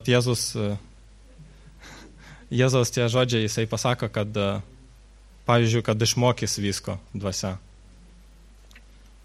Jėzaus tie žodžiai, jisai pasako, kad, pavyzdžiui, kad išmokys visko dvasia.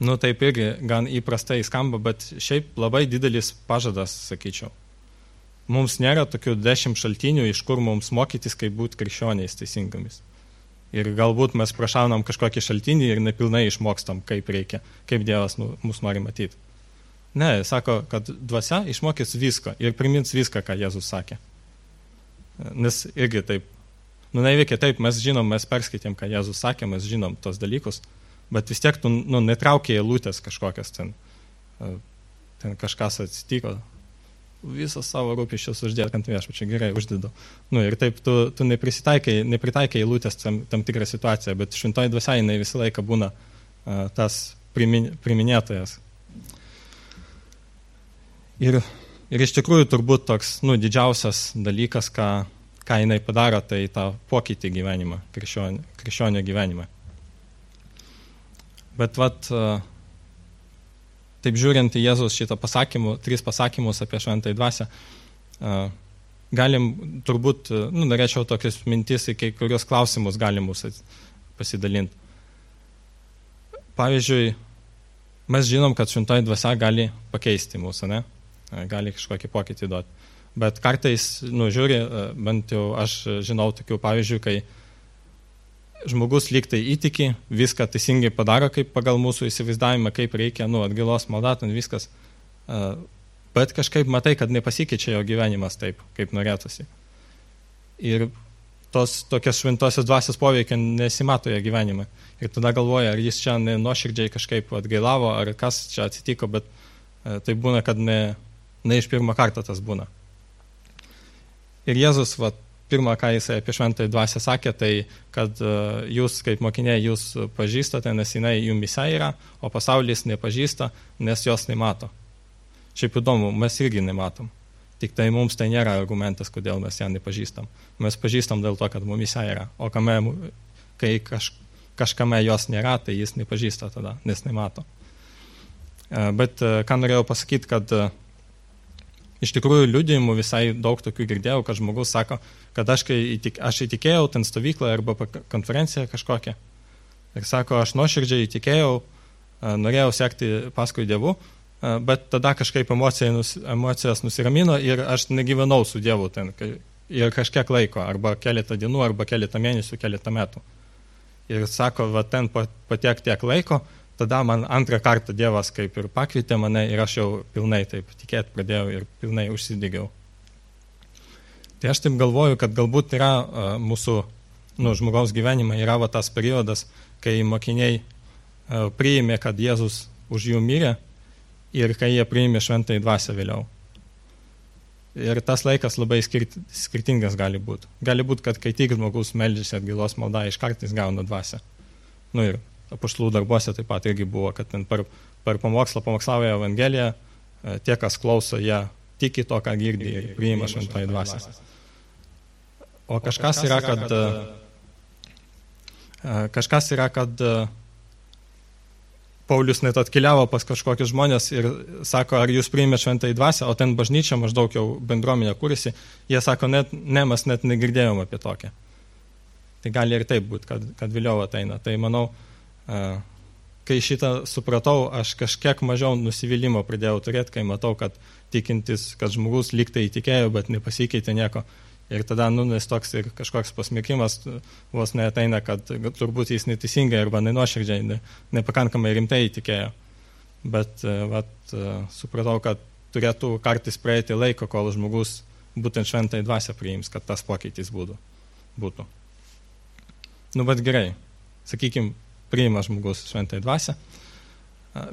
Nu, taip irgi gan įprastai skamba, bet šiaip labai didelis pažadas, sakyčiau. Mums nėra tokių 10 šaltinių, iš kur mums mokytis, kaip būti krikščioniais teisingomis. Ir galbūt mes prašaunam kažkokį šaltinį ir nepilnai išmokstam, kaip reikia, kaip Dievas mus nori matyti. Ne, sako, kad dvasia išmokys visko ir primins viską, ką Jėzus sakė. Nes irgi taip, neveikia taip, mes žinom, mes perskaitėm, ką Jėzus sakė, mes žinom tos dalykus, bet vis tiek tu netraukia eilutės kažkokias ten kažkas atsitiko, visas savo rūpesčius uždėt ant viešpačio, gerai, uždėdu. Ir taip tu nepritaikai eilutės tam tikrą situaciją, bet šventoji dvasia jinai visą laiką būna tas priminėtojas. Ir iš tikrųjų turbūt toks didžiausias dalykas, ką jinai padaro, tai tą pokytį gyvenimą, krikščionio gyvenimą. Bet taip žiūrint į Jėzus šitą 3 pasakymus apie šventąją dvasią, galim turbūt, norėčiau tokius mintis į kai kurios klausimus galim mūsų pasidalinti. Pavyzdžiui, mes žinom, kad šventoji dvasia gali pakeisti mūsų, ne? Gali kažkokį pokytį duoti. Bet kartais, žiūri, bent jau aš žinau tokių pavyzdžių, kai žmogus lyg tai įtiki, viską teisingai padaro, kaip pagal mūsų įsivaizdavimą, kaip reikia, atgailos malda, viskas. Bet kažkaip matai, kad nepasikeičia jo gyvenimas taip, kaip norėtųsi. Ir tos tokios šventosios dvasios poveikia nesimato jo gyvenime. Ir tada galvoja, ar jis čia nuoširdžiai kažkaip atgailavo, ar kas čia atsitiko, bet tai būna, kad ne iš pirmo karto tas būna. Ir Jėzus, pirmą, ką jisai apie šventąją dvasią sakė, tai kad jūs kaip mokiniai jūs pažįstate, nes jinai jumyse yra, o pasaulis nepažįsta, nes jos nemato. Šiaip įdomu, mes irgi nematom. Tik tai mums tai nėra argumentas, kodėl mes ją nepažįstam. Mes pažįstam dėl to, kad mumyse yra. O kai kažkame jos nėra, tai jis nepažįsta tada, nes nemato. Bet ką norėjau pasakyti, kad iš tikrųjų liudijimų visai daug tokių girdėjau, kad žmogus sako, kad aš įtikėjau ten stovyklą arba konferenciją kažkokią. Ir sako, aš nuoširdžiai įtikėjau, norėjau sekti paskui Dievu, bet tada kažkaip emocijos nusiramino ir aš negyvenau su Dievu ten ir kažkiek laiko, arba keletą dienų, arba keletą mėnesių, keletą metų. Ir sako, ten patiek tiek laiko, tada man antrą kartą Dievas kaip ir pakvietė mane ir aš jau pilnai taip tikėti pradėjau ir pilnai užsidegiau. Tai aš taip galvoju, kad galbūt yra mūsų žmogaus gyvenime yra tas periodas, kai mokiniai priėmė, kad Jėzus už jų mirė ir kai jie priėmė šventąją dvasią vėliau. Ir tas laikas labai skirtingas gali būti. Gali būti, kad kai tik žmogus meldžiasi atgailos maldą, iš kartais gauna dvasią. Ir apaštalų darbuose taip pat irgi buvo, kad per pamokslą pamokslauja Evangeliją, tie, kas klauso, jie tiki to, ką girdi ir priima šventąją dvasią. O kažkas yra, kad Paulius net atkeliavo pas kažkokius žmonės ir sako, ar jūs priimėte šventąją dvasią, o ten bažnyčia maždaug jau bendruomenė kūrėsi, jie sako, mes net negirdėjom apie tokią. Tai gali ir taip būti, kad vėliau ateina. Tai manau, kai šitą supratau, aš kažkiek mažiau nusivylimo pradėjau turėti, kai matau, kad tikintis, kad žmogus lyg tai įtikėjo, bet nepasikeitė nieko. Ir tada nes toks ir kažkoks pasmerkimas vos neateina, kad turbūt jis neteisingai arba nenuoširdžiai, nepakankamai rimtai įtikėjo. Bet supratau, kad turėtų kartais praeiti laiko, kol žmogus būtent šventąją dvasią priims, kad tas pokytis būtų. Bet gerai, sakykime, priima žmogus šventąją dvasią.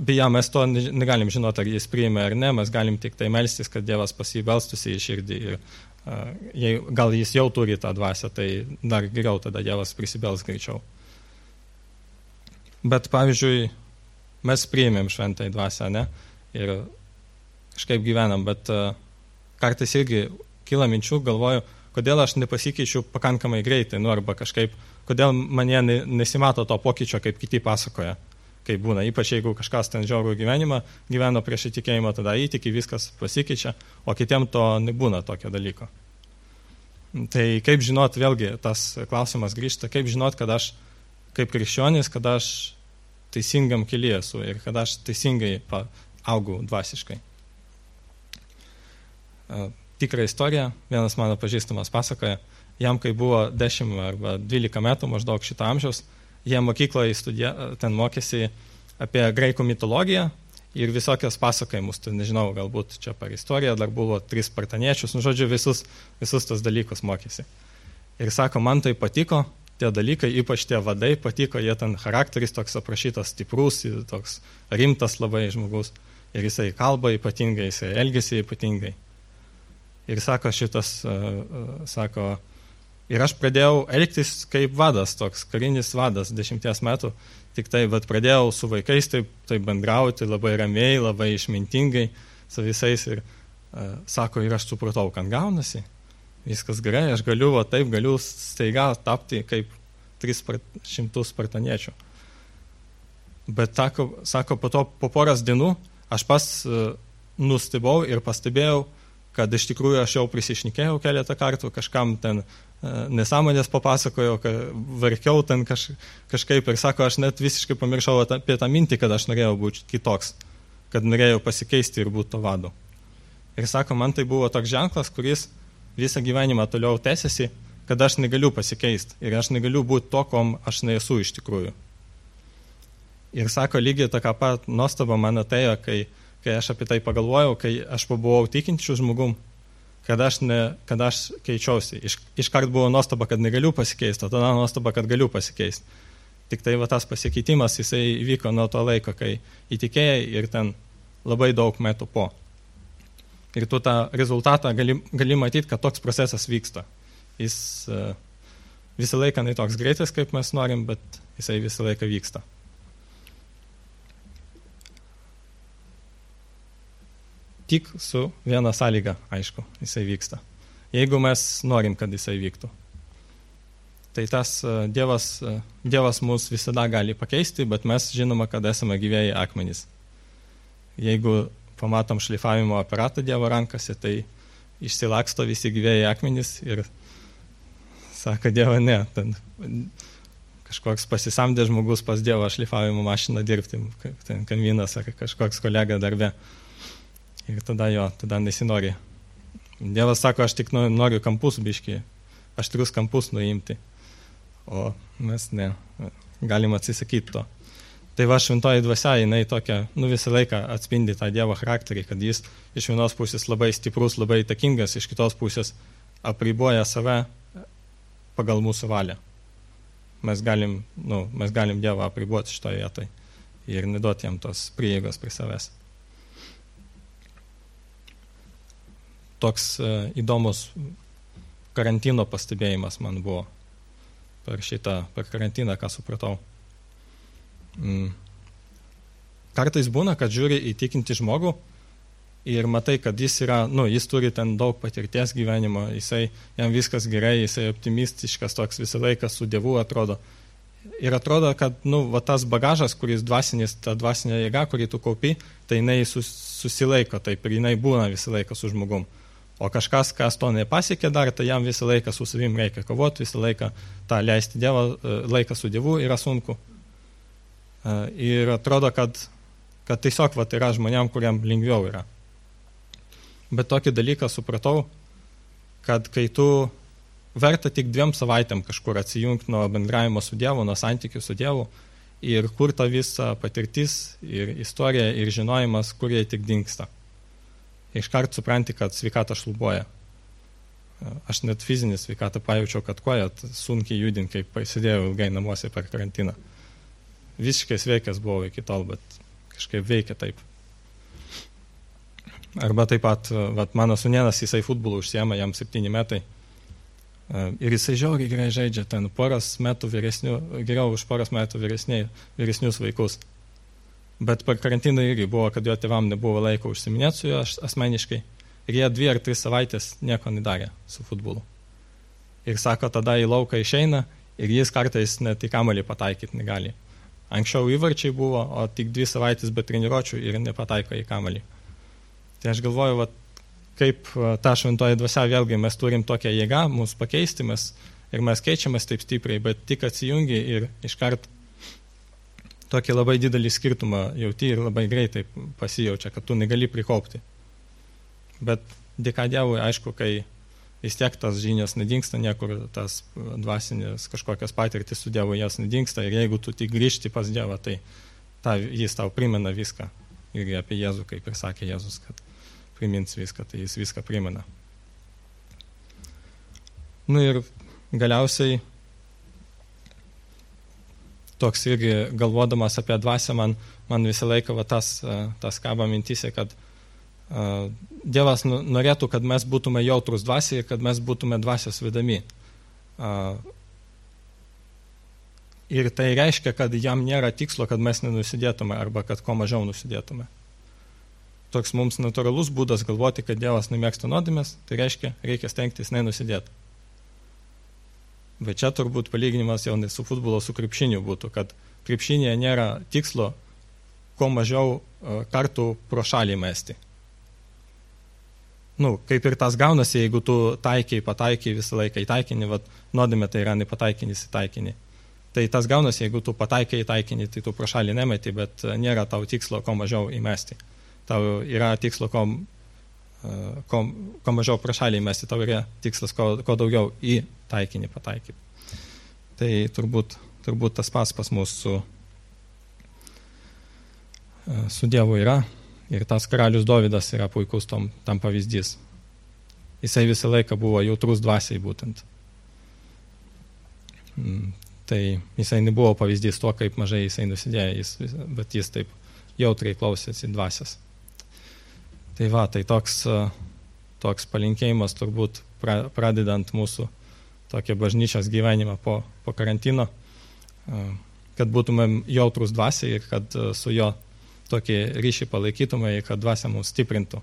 Beje, mes to negalim žinoti, ar jis priima ar ne, mes galim tik tai melstis, kad Dievas pas jį belstųsi į širdį ir gal jis jau turi tą dvasią, tai dar geriau tada Dievas prisibels greičiau. Bet, pavyzdžiui, mes priėmėm šventąją dvasią, ne? Ir kažkaip gyvenam, bet kartais irgi kyla minčių, galvoju, kodėl aš nepasikeičiu pakankamai greitai, arba kažkaip, kodėl mane nesimato to pokyčio, kaip kiti pasakoja, kaip būna. Ypač jeigu kažkas ten žiaurų gyvenimą gyveno prieš įtikėjimą, tada įtiki, viskas pasikeičia, o kitiem to nebūna tokio dalyko. Tai kaip žinot, vėlgi tas klausimas grįžta, kaip žinot, kad aš kaip krikščionis, kad aš teisingam kelyje esu ir kad aš teisingai augau dvasiškai. Tikrą istoriją, vienas mano pažįstamas pasakoja, jam kai buvo 10 arba 12 metų maždaug šito amžiaus, jie mokykloje ten mokėsi apie graikų mitologiją ir visokios pasakojimus, tai nežinau, galbūt čia per istoriją dar buvo 3 spartaniečius, žodžiu, visus tos dalykus mokėsi. Ir sako, man tai patiko, tie dalykai, ypač tie vadai patiko, jie ten charakteris toks aprašytas stiprus, toks rimtas labai žmogus, ir jisai kalba ypatingai, jisai elgiasi ypatingai. Ir sako ir aš pradėjau elgtis kaip vadas, toks karinis vadas 10 metų, tik tai, bet pradėjau su vaikais taip bendrauti, labai ramiai, labai išmintingai su visais ir sako, ir aš supratau, kad gaunasi, viskas gerai, aš galiu staiga tapti kaip 300 spartaniečių. Bet sako, po poros dienų aš pas nustebau ir pastebėjau, kad iš tikrųjų aš jau prisišnekėjau keletą kartų, kažkam ten nesąmonės papasakojau, verkiau ten kažkaip ir sako, aš net visiškai pamiršau apie tą mintį, kad aš norėjau būti kitoks, kad norėjau pasikeisti ir būti to vadu. Ir sako, man tai buvo toks ženklas, kuris visą gyvenimą toliau tęsiasi, kad aš negaliu pasikeisti ir aš negaliu būti to, kom aš nesu iš tikrųjų. Ir sako, lygiai tokia pat nuostaba man atėjo, kai aš apie tai pagalvojau, kai aš pabuvau tikinčių žmogum, kad aš keičiausi. Iškart buvo nuostaba, kad negaliu pasikeisti, o tada nuostaba, kad galiu pasikeisti. Tik tai tas pasikeitimas, jisai vyko nuo to laiko, kai įtikėjai ir ten labai daug metų po. Ir tu tą rezultatą gali matyti, kad toks procesas vyksta. Jis visą laiką ne toks greitas, kaip mes norim, bet jisai visą laiką vyksta. Tik su viena sąlyga, aišku, jisai vyksta. Jeigu mes norim, kad jisai vyktų. Tai tas Dievas mus visada gali pakeisti, bet mes žinoma, kad esame gyvėjai akmenys. Jeigu pamatom šlifavimo aparatą Dievo rankose, tai išsilaksto visi gyvėjai akmenys ir sako Dievo, ne, ten kažkoks pasisamdė žmogus pas Dievo šlifavimo mašiną dirbti, ten kaimynas ar kažkoks kolega darbe. Ir tada nesinori. Dievas sako, aš tik noriu kampus biškį, aštrius kampus nuimti, o mes ne, galim atsisakyti to. Tai šventoji dvasia, jinai tokia, visą laiką atspindi tą Dievo charakterį, kad jis iš vienos pusės labai stiprus, labai įtakingas, iš kitos pusės apriboja save pagal mūsų valią. Mes galim Dievą apriboti šitoje vietoje ir neduoti jam tos prieigos prie savęs. Toks įdomus karantino pastebėjimas man buvo per karantiną, ką supratau. Kartais būna, kad žiūri į tikintį žmogų ir matai, kad jis jis turi ten daug patirties gyvenimo, jam viskas gerai, jisai optimistiškas, toks visą laiką su Dievu atrodo. Ir atrodo, kad tas bagažas, kuris dvasinis, ta dvasinė jėga, kurį tu kaupi, tai jinai susilaiko, taip ir jinai būna visą laiką su žmogum. O kažkas, kas to nepasiekė dar, tai jam visą laiką su savim reikia kovoti, visą laiką tą leisti laiką su Dievu yra sunku. Ir atrodo, kad tiesiog yra žmonėm, kuriam lengviau yra. Bet tokį dalyką supratau, kad kai tu verta tik 2 savaitėm kažkur atsijungti nuo bendravimo su Dievu, nuo santykių su Dievu ir kur ta visa patirtis ir istorija ir žinojimas, kur jie tik dingsta. Iškart supranti, kad sveikata šlubuoja. Aš net fizinį sveikatą pajaučiau, kad koja sunkiai judint, kai pasėdėjau ilgai namuose per karantiną. Visiškai sveikas buvau iki tol, bet kažkaip veikia taip. Arba taip pat, mano sūnėnas, jisai futbolų užsiema, jam 7 metai. Ir jisai žiauriai gerai žaidžia, ten geriau už poros metų vyresnius vaikus. Bet per karantiną irgi buvo, kad jo tėvam nebuvo laiko užsiminėti su juo asmeniškai. Ir jie 2 ar 3 savaitės nieko nedarė su futbolu. Ir sako, tada į lauką išeina ir jis kartais net į kamuolį pataikyti negali. Anksčiau įvarčiai buvo, o tik 2 savaitės be treniruočių ir nepataiko į kamuolį. Tai aš galvoju, kaip ta šventoji dvasia, vėlgi mes turim tokią jėgą, mūsų pakeisti, ir mes keičiamės taip stipriai, bet tik atsijungi ir iškart tokį labai didelį skirtumą jauti ir labai greitai pasijaučia, kad tu negali prikaupti. Bet dėka Dievui, aišku, kai vis tiek tas žinios nedingsta niekur, tas dvasinės kažkokios patirtis su Dievu jas nedingsta ir jeigu tu tik grįžti pas Dievą, tai jis tau primena viską. Ir apie Jėzų, kaip ir sakė Jėzus, kad primins viską, tai jis viską primena. Ir galiausiai toks irgi galvodamas apie dvasią, man visą laiką tas kaba mintise, kad Dievas norėtų, kad mes būtume jautrus dvasiai ir kad mes būtume dvasios vedami. Ir tai reiškia, kad jam nėra tikslo, kad mes nenusidėtume arba kad kuo mažiau nusidėtume. Toks mums natūralus būdas galvoti, kad Dievas nemėgsta nuodėmės, tai reiškia, reikia stengtis nenusidėti. Bet čia turbūt palyginimas jau ne su futbolo, su krepšiniu būtų, kad krepšinėje nėra tikslo kuo mažiau kartų pro šalį mesti. Kaip ir tas gaunasi, jeigu tu pataikiai visą laiką į taikinį, nuodėmė tai yra nepataikinis į taikinį. Tai tas gaunasi, jeigu tu pataikiai į taikinį, tai tu pro šalį nemeti, bet nėra tau tikslo kuo mažiau įmesti. Tau yra tikslo kuo mažiau pro šalį įmesti, tau yra tikslas kuo daugiau į taikinį pataikyti. Tai turbūt tas pas mus su Dievu yra. Ir tas karalius Dovydas yra puikus tam pavyzdys. Jisai visą laiką buvo jautrus dvasiai būtent. Tai jisai nebuvo pavyzdys to, kaip mažai jisai nusidėjo, bet jis taip jautriai klausėsi dvasios. Tai toks palinkėjimas turbūt pradedant mūsų tokią bažnyčios gyvenimą po karantino, kad būtumėm jautrus dvasiai ir kad su jo tokį ryšį palaikytume ir kad dvasia mus stiprintų.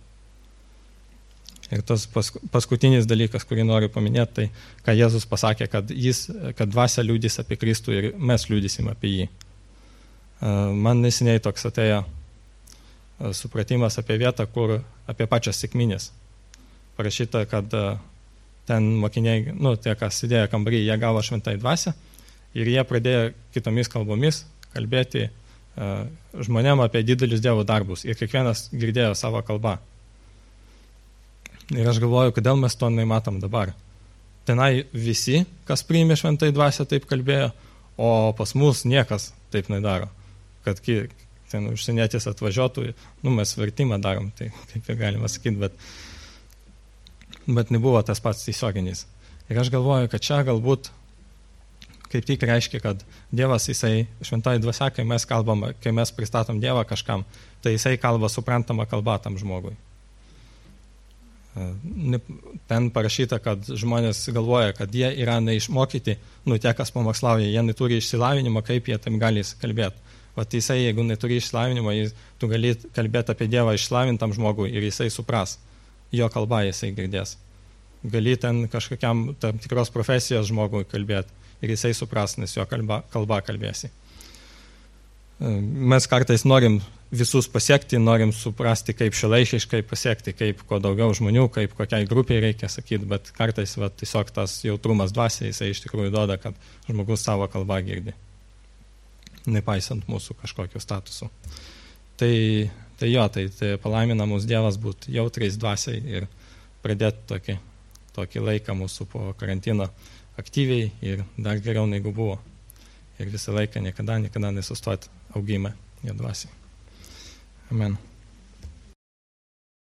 Ir tas paskutinis dalykas, kurį noriu paminėti, tai ką Jėzus pasakė, kad dvasia liudys apie Kristų ir mes liudysim apie jį. Man neseniai toks atėjo supratimas apie vietą, kur apie pačias sekminės. Parašyta, kad ten mokiniai, tie, kas sėdėjo kambarį, jie gavo šventąją dvasią ir jie pradėjo kitomis kalbomis kalbėti žmonėm apie didelius Dievo darbus ir kiekvienas girdėjo savo kalbą. Ir aš galvoju, kodėl mes to nematom dabar. Tenai visi, kas priėmė šventąją dvasią, taip kalbėjo, o pas mus niekas taip nedaro. Kad ten užsienietis atvažiuotų, mes vertimą darom, tai kaip ir galima sakyti, bet nebuvo tas pats tiesioginis. Ir aš galvoju, kad čia galbūt kaip tik reiškia, kad Dievas, jisai šventoji dvasia, kai mes pristatom Dievą kažkam, tai jisai kalba suprantamą kalbą tam žmogui. Ten parašyta, kad žmonės galvoja, kad jie yra neišmokyti, tie, kas pamokslauja, jie neturi išsilavinimo, kaip jie tam gali kalbėti. Jisai, jeigu neturi išsilavinimo, tu gali kalbėti apie Dievą išslavintam žmogui ir jisai supras, jo kalbą jisai girdės. Gali ten kažkokiam tam tikros profesijos žmogui kalbėti ir jisai supras, nes jo kalba kalbėsi. Mes kartais norim visus pasiekti, norim suprasti, kaip šiuolaikiškai pasiekti, kaip kuo daugiau žmonių, kaip kokiai grupiai reikia sakyti, bet kartais tiesiog tas jautrumas dvasia, jisai iš tikrųjų duoda, kad žmogus savo kalbą girdi, nepaisant mūsų kažkokio statusų. Tai palaimina mūsų Dievas būti jautriais dvasiai ir pradėti tokį laiką mūsų po karantino aktyviai ir dar geriau negu buvo. Ir visą laiką niekada nesustoti augime jo dvasiai. Amen.